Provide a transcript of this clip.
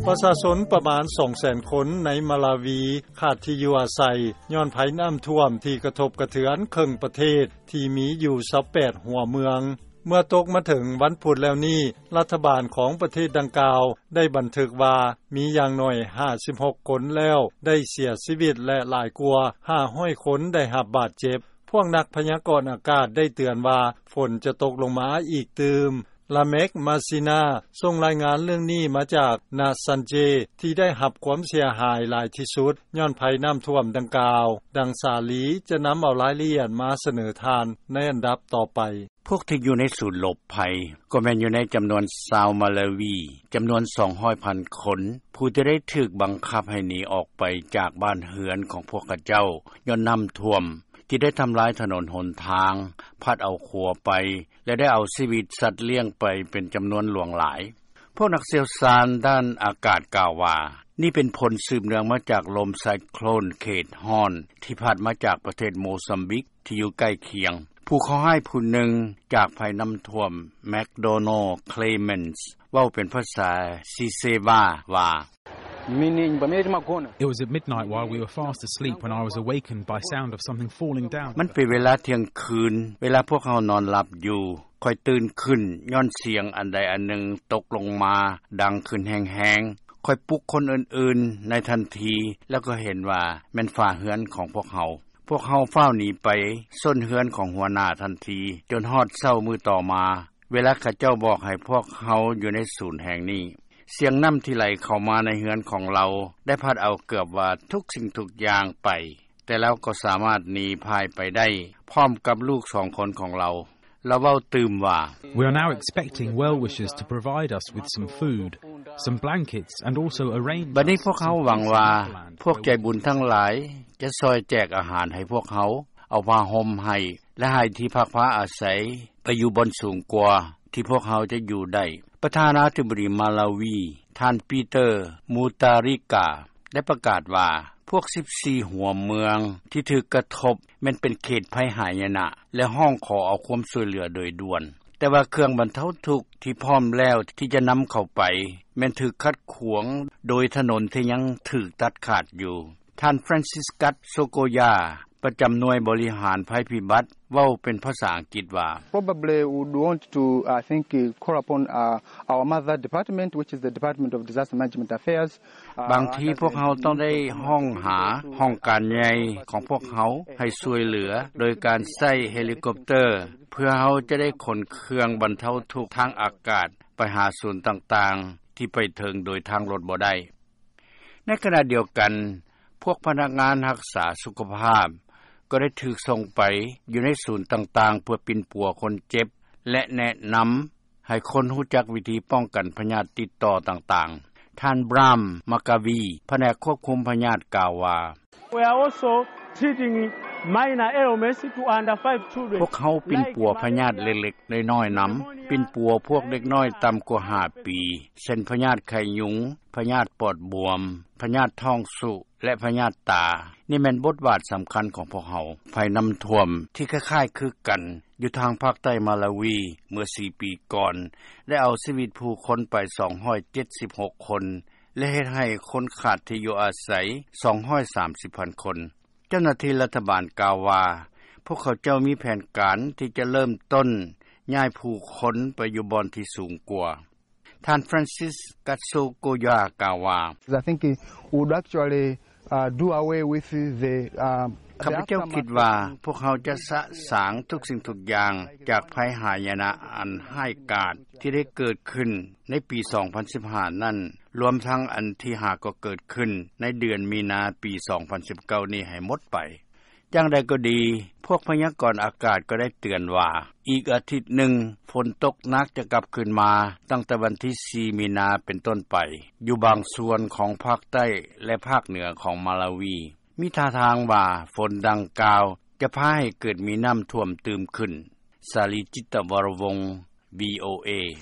ປະຊາຊົນປະມານສອງແສນຄົນໃນມາລາວີ ຂາດທີ່ຢູ່ອາໄສ ຍ້ອນໄພນ້ຳຖ້ວມທີ່ກະທົບກະເທືອນເຄິ່ງປະເທດ ທີ່ມີຢູ່ຊາວແປດຫົວເມືອງ. ເມື່ອຕົກມາເຖິງວັນພຸດແລ້ວນີ້ ລັດຖະບານຂອງປະເທດດັ່ງກ່າວ ໄດ້ບັນທຶກວ່າ ມີຢ່າງໜ້ອຍຫ້າສິບຫົກຄົນແລ້ວໄດ້ເສຍຊີວິດ ແລະ ຫຼາຍກວ່າຫ້າຮ້ອຍຄົນໄດ້ຮັບບາດເຈັບ. ພວກນັກພະຍາກອນອາກາດໄດ້ເຕືອນວ່າ ຝົນຈະຕົກລົງມາອີກຕື່ມ. ລາເມັກ ມາຊີນາ ສົ່ງລາຍງານເລື່ອງນີ້ມາຈາກ ນາຊັນເຈ ທີ່ໄດ້ຮັບຄວາມເສຍຫາຍຫຼາຍທີ່ສຸດ ຍ້ອນໄພນ້ຳຖ້ວມດັ່ງກ່າວ. ດັ່ງສາລີຈະນຳເອົາລາຍລະອຽດມາສະເໜີທ່ານໃນອັນດັບຕໍ່ໄປ. ພວກທີ່ຢູ່ໃນສູນຫຼົບໄພ ກໍແມ່ນຢູ່ໃນຈຳນວນຊາວມາລາວີ ຈຳນວນສອງຮ້ອຍພັນຄົນ ຜູ້ທີ່ໄດ້ຖືກບັງຄັບໃຫ້ໜີອອກໄປຈາກບ້ານເຮືອນຂອງພວກເຂົາເຈົ້າ ຍ້ອນນ້ຳຖ້ວມ ທີ່ໄດ້ທຳລາຍຖະໜົນຫົນທາງ, ພັດເອົາຂົວໄປ ແລະ ໄດ້ເອົາຊີວິດສັດລ້ຽງໄປເປັນຈຳນວນຫຼວງຫຼາຍ. ພວກນັກຊ່ຽວຊານດ້ານອາກາດກ່າວວ່າ ນີ້ເປັນຜົນສືບເນື່ອງມາຈາກລົມໄຊໂຄຣນເຂດຮ້ອນ ທີ່ພັດມາຈາກປະເທດໂມຊຳບິກ ທີ່ຢູ່ໃກ້ຄຽງ. ຜູ້ເຄາະຮ້າຍຜູ້ໜຶ່ງຈາກໄພນ້ຳຖ້ວມ ແມັກໂດນັລ ເຄລເມັນສ໌ ເວົ້າເປັນພາສາຊີເຊວາວ່າ It was at midnight while we were fast asleep when I was awakened by sound of something falling down. ມັນເປັນເວລາທ່ຽງຄືນ ເວລາພວກເຮົານອນຫຼັບຢູ່ ຂ້ອຍຕື່ນຂຶ້ນຍ້ອນສຽງອັນໃດອັນໜຶ່ງຕົກລົງມາດັງຂຶ້ນແຮງໆ. ຂ້ອຍປຸກຄົນອື່ນໆໃນທັນທີ ແລ້ວກໍເຫັນວ່າແມ່ນຝາເຮືອນຂອງພວກເຮົາ. ພວກເຮົາຟ້າວໜີໄປຊົນເຮືອນຂອງຫົວໜ້າທັນທີ ຈົນຮອດເຊົ້າມື້ຕໍ່ມາ ເວລາເຂົາເຈົ້າບອກໃຫ້ພວກເຮົາຢູ່ໃນສູນແຫ່ງນີ້. ສຽງນ້ຳທີ່ໄຫຼເຂົ້າມາໃນເຮືອນຂອງລາວ ໄດ້ພັດເອົາເກືອບວ່າທຸກສິ່ງທຸກຢ່າງໄປ, ແຕ່ລາວກໍສາມາດໜີພ່າຍໄປໄດ້ ພ້ອມກັບລູກສອງຄົນຂອງລາວ. ລາວເວົ້າຕື່ມວ່າ We are now expecting well wishers to provide us with some food, some blankets, and also a rain. ບັດນີ້ພວກເຮົາຫວັງວ່າ ພວກໃຈບຸນທັງຫຼາຍຈະຊ່ອຍແຈກອາຫານໃຫ້ພວກເຮົາ, ເອົາຜ້າຫົ່ມໃຫ້ ແລະ ໃຫ້ທີ່ພັກພາອາໄສໄປຢູ່ບ່ອນສູງກວ່າທີ່ພວກເຮົາຈະຢູ່ໄດ້. ປະທານາທິບໍດີມາລາວີ ທ່ານ ປີເຕີ ມູຕາຣິກາ ໄດ້ປະກາດວ່າ ພວກສິບສີ່ຫົວເມືອງທີ່ຖືກກະທົບແມ່ນເປັນເຂດໄພຫາຍະນະ ແລະ ຮ້ອງຂໍເອົາຄວາມຊ່ວຍເຫຼືອໂດຍດ່ວນ, ແຕ່ວ່າເຄື່ອງບັນເທົາທຸກທີ່ພ້ອມແລ້ວທີ່ຈະນຳເຂົ້າໄປ ແມ່ນຖືກຂັດຂວາງໂດຍຖະໜົນທີ່ຍັງຖືກຕັດຂາດຢູ່. ທ່ານ Franciscus Sokoya ປະຈຳໜ່ວຍບໍລິຫານໄພພິບັດ ເວົ້າເປັນພາສາອັງກິດວ່າ Probably would want to, I think, call upon, uh, our mother department, which is the Department of Disaster Management Affairs. ບາງທີພວກເຮົາຕ້ອງໄດ້ຮ້ອງຫາຫ້ອງການໃຫຍ່ຂອງພວກເຮົາໃຫ້ຊ່ວຍເຫຼືອໂດຍການໃຊ້ເຮລິຄອບເຕີ ເພື່ອເຮົາຈະໄດ້ຂົນເຄື່ອງບັນເທົາທຸກທາງອາກາດໄປຫາສູນຕ່າງໆທີ່ໄປເຖິງໂດຍທາງລົດບໍ່ໄດ້. ໃນຂະນະດຽວກັນ, ພວກພະນັກງານຮັກສາສຸຂະພາບກໍໄດ້ຖືກສົ່ງໄປຢູ່ໃນສູນຕ່າງໆ ເພື່ອປິ່ນປົວຄົນເຈັບ ແລະ ແນະນຳໃຫ້ຄົນຮູ້ຈັກວິທີປ້ອງກັນພະຍາດຕິດຕໍ່ຕ່າງໆ. ທ່ານ ບຣາມ ມາກາວີ ພະແນກຄວບຄຸມພະຍາດ ກ່າວວ່າ We are also treating minor ailments to under five children. ພວກເຮົາປິ່ນປົວພະຍາດເລັກໆນ້ອຍໆນຳ, ປິ່ນປົວພວກເດັກນ້ອຍຕ່ຳກວ່າຫ້າປີ ເຊັ່ນ ພະຍາດໄຂ້ຍຸງ, ພະຍາດປອດບວມ, ພະຍາດທ້ອງຊຸ ແລະ ພະຍາດຕາ. ນີ້ແມ່ນບົດບາດສຳຄັນຂອງພວກເຮົາ. ໄພນ້ຳຖ້ວມທີ່ຄ້າຍໆຄືກັນຢູ່ທາງພາກໃຕ້ມາລາວີເມື່ອສີ່ປີກ່ອນ ໄດ້ເອົາຊີວິດຜູ້ຄົນໄປສອງຮ້ອຍເຈັດສິບຫົກຄົນ ແລະ ເຮັດໃຫ້ຄົນຂາດທີ່ຢູ່ອາໄສສອງຮ້ອຍສາມສິບພັນຄົນ. ເຈົ້າໜ້າທີ່ລັດຖະບານກ່າວວ່າ ພວກເຂົາເຈົ້າມີແຜນການທີ່ຈະເລີ່ມຕົ້ນຍ້າຍຜູ້ຄົນໄປຢູ່ບ່ອນທີ່ສູງກວ່າ. ທ່ານ Franciscus Sokoya ກ່າວວ່າ I think we would actually, uh, do away with the, uh, ຂ້າພະເຈົ້າຄິດວ່າພວກເຮົາຈະສະສາງທຸກສິ່ງທຸກຢ່າງຈາກໄພຫາຍະນະອັນຮ້າຍກາດທີ່ໄດ້ເກີດຂຶ້ນໃນປີສອງພັນສິບຫ້ານັ້ນ, ລວມທັງອັນທີ່ຫາກໍເກີດຂຶ້ນໃນເດືອນມີນາປີສອງພັນສິບເກົ້ານີ້ໃຫ້ໝົດໄປ. ຢ່າງໃດກໍດີ, ພວກພະຍາກອນອາກາດກໍໄດ້ເຕືອນວ່າ ອີກອາທິດໜຶ່ງ ຝົນຕົກໜັກຈະກັບຄືນມາ ຕັ້ງແຕ່ວັນທີສີ່ມີນາເປັນຕົ້ນໄປ ຢູ່ບາງສ່ວນຂອງພາກໃຕ້ ແລະ ພາກເໜືອຂອງມາລາວີ. ມີທ່າທາງວ່າຝົນດັ່ງກ່າວຈະພາໃຫ້ເກີດມີນ້ຳຖ້ວມຕື່ມຂຶ້ນ. ສາລີ ຈິດຕະວໍລະວົງ ວີໂອເອ.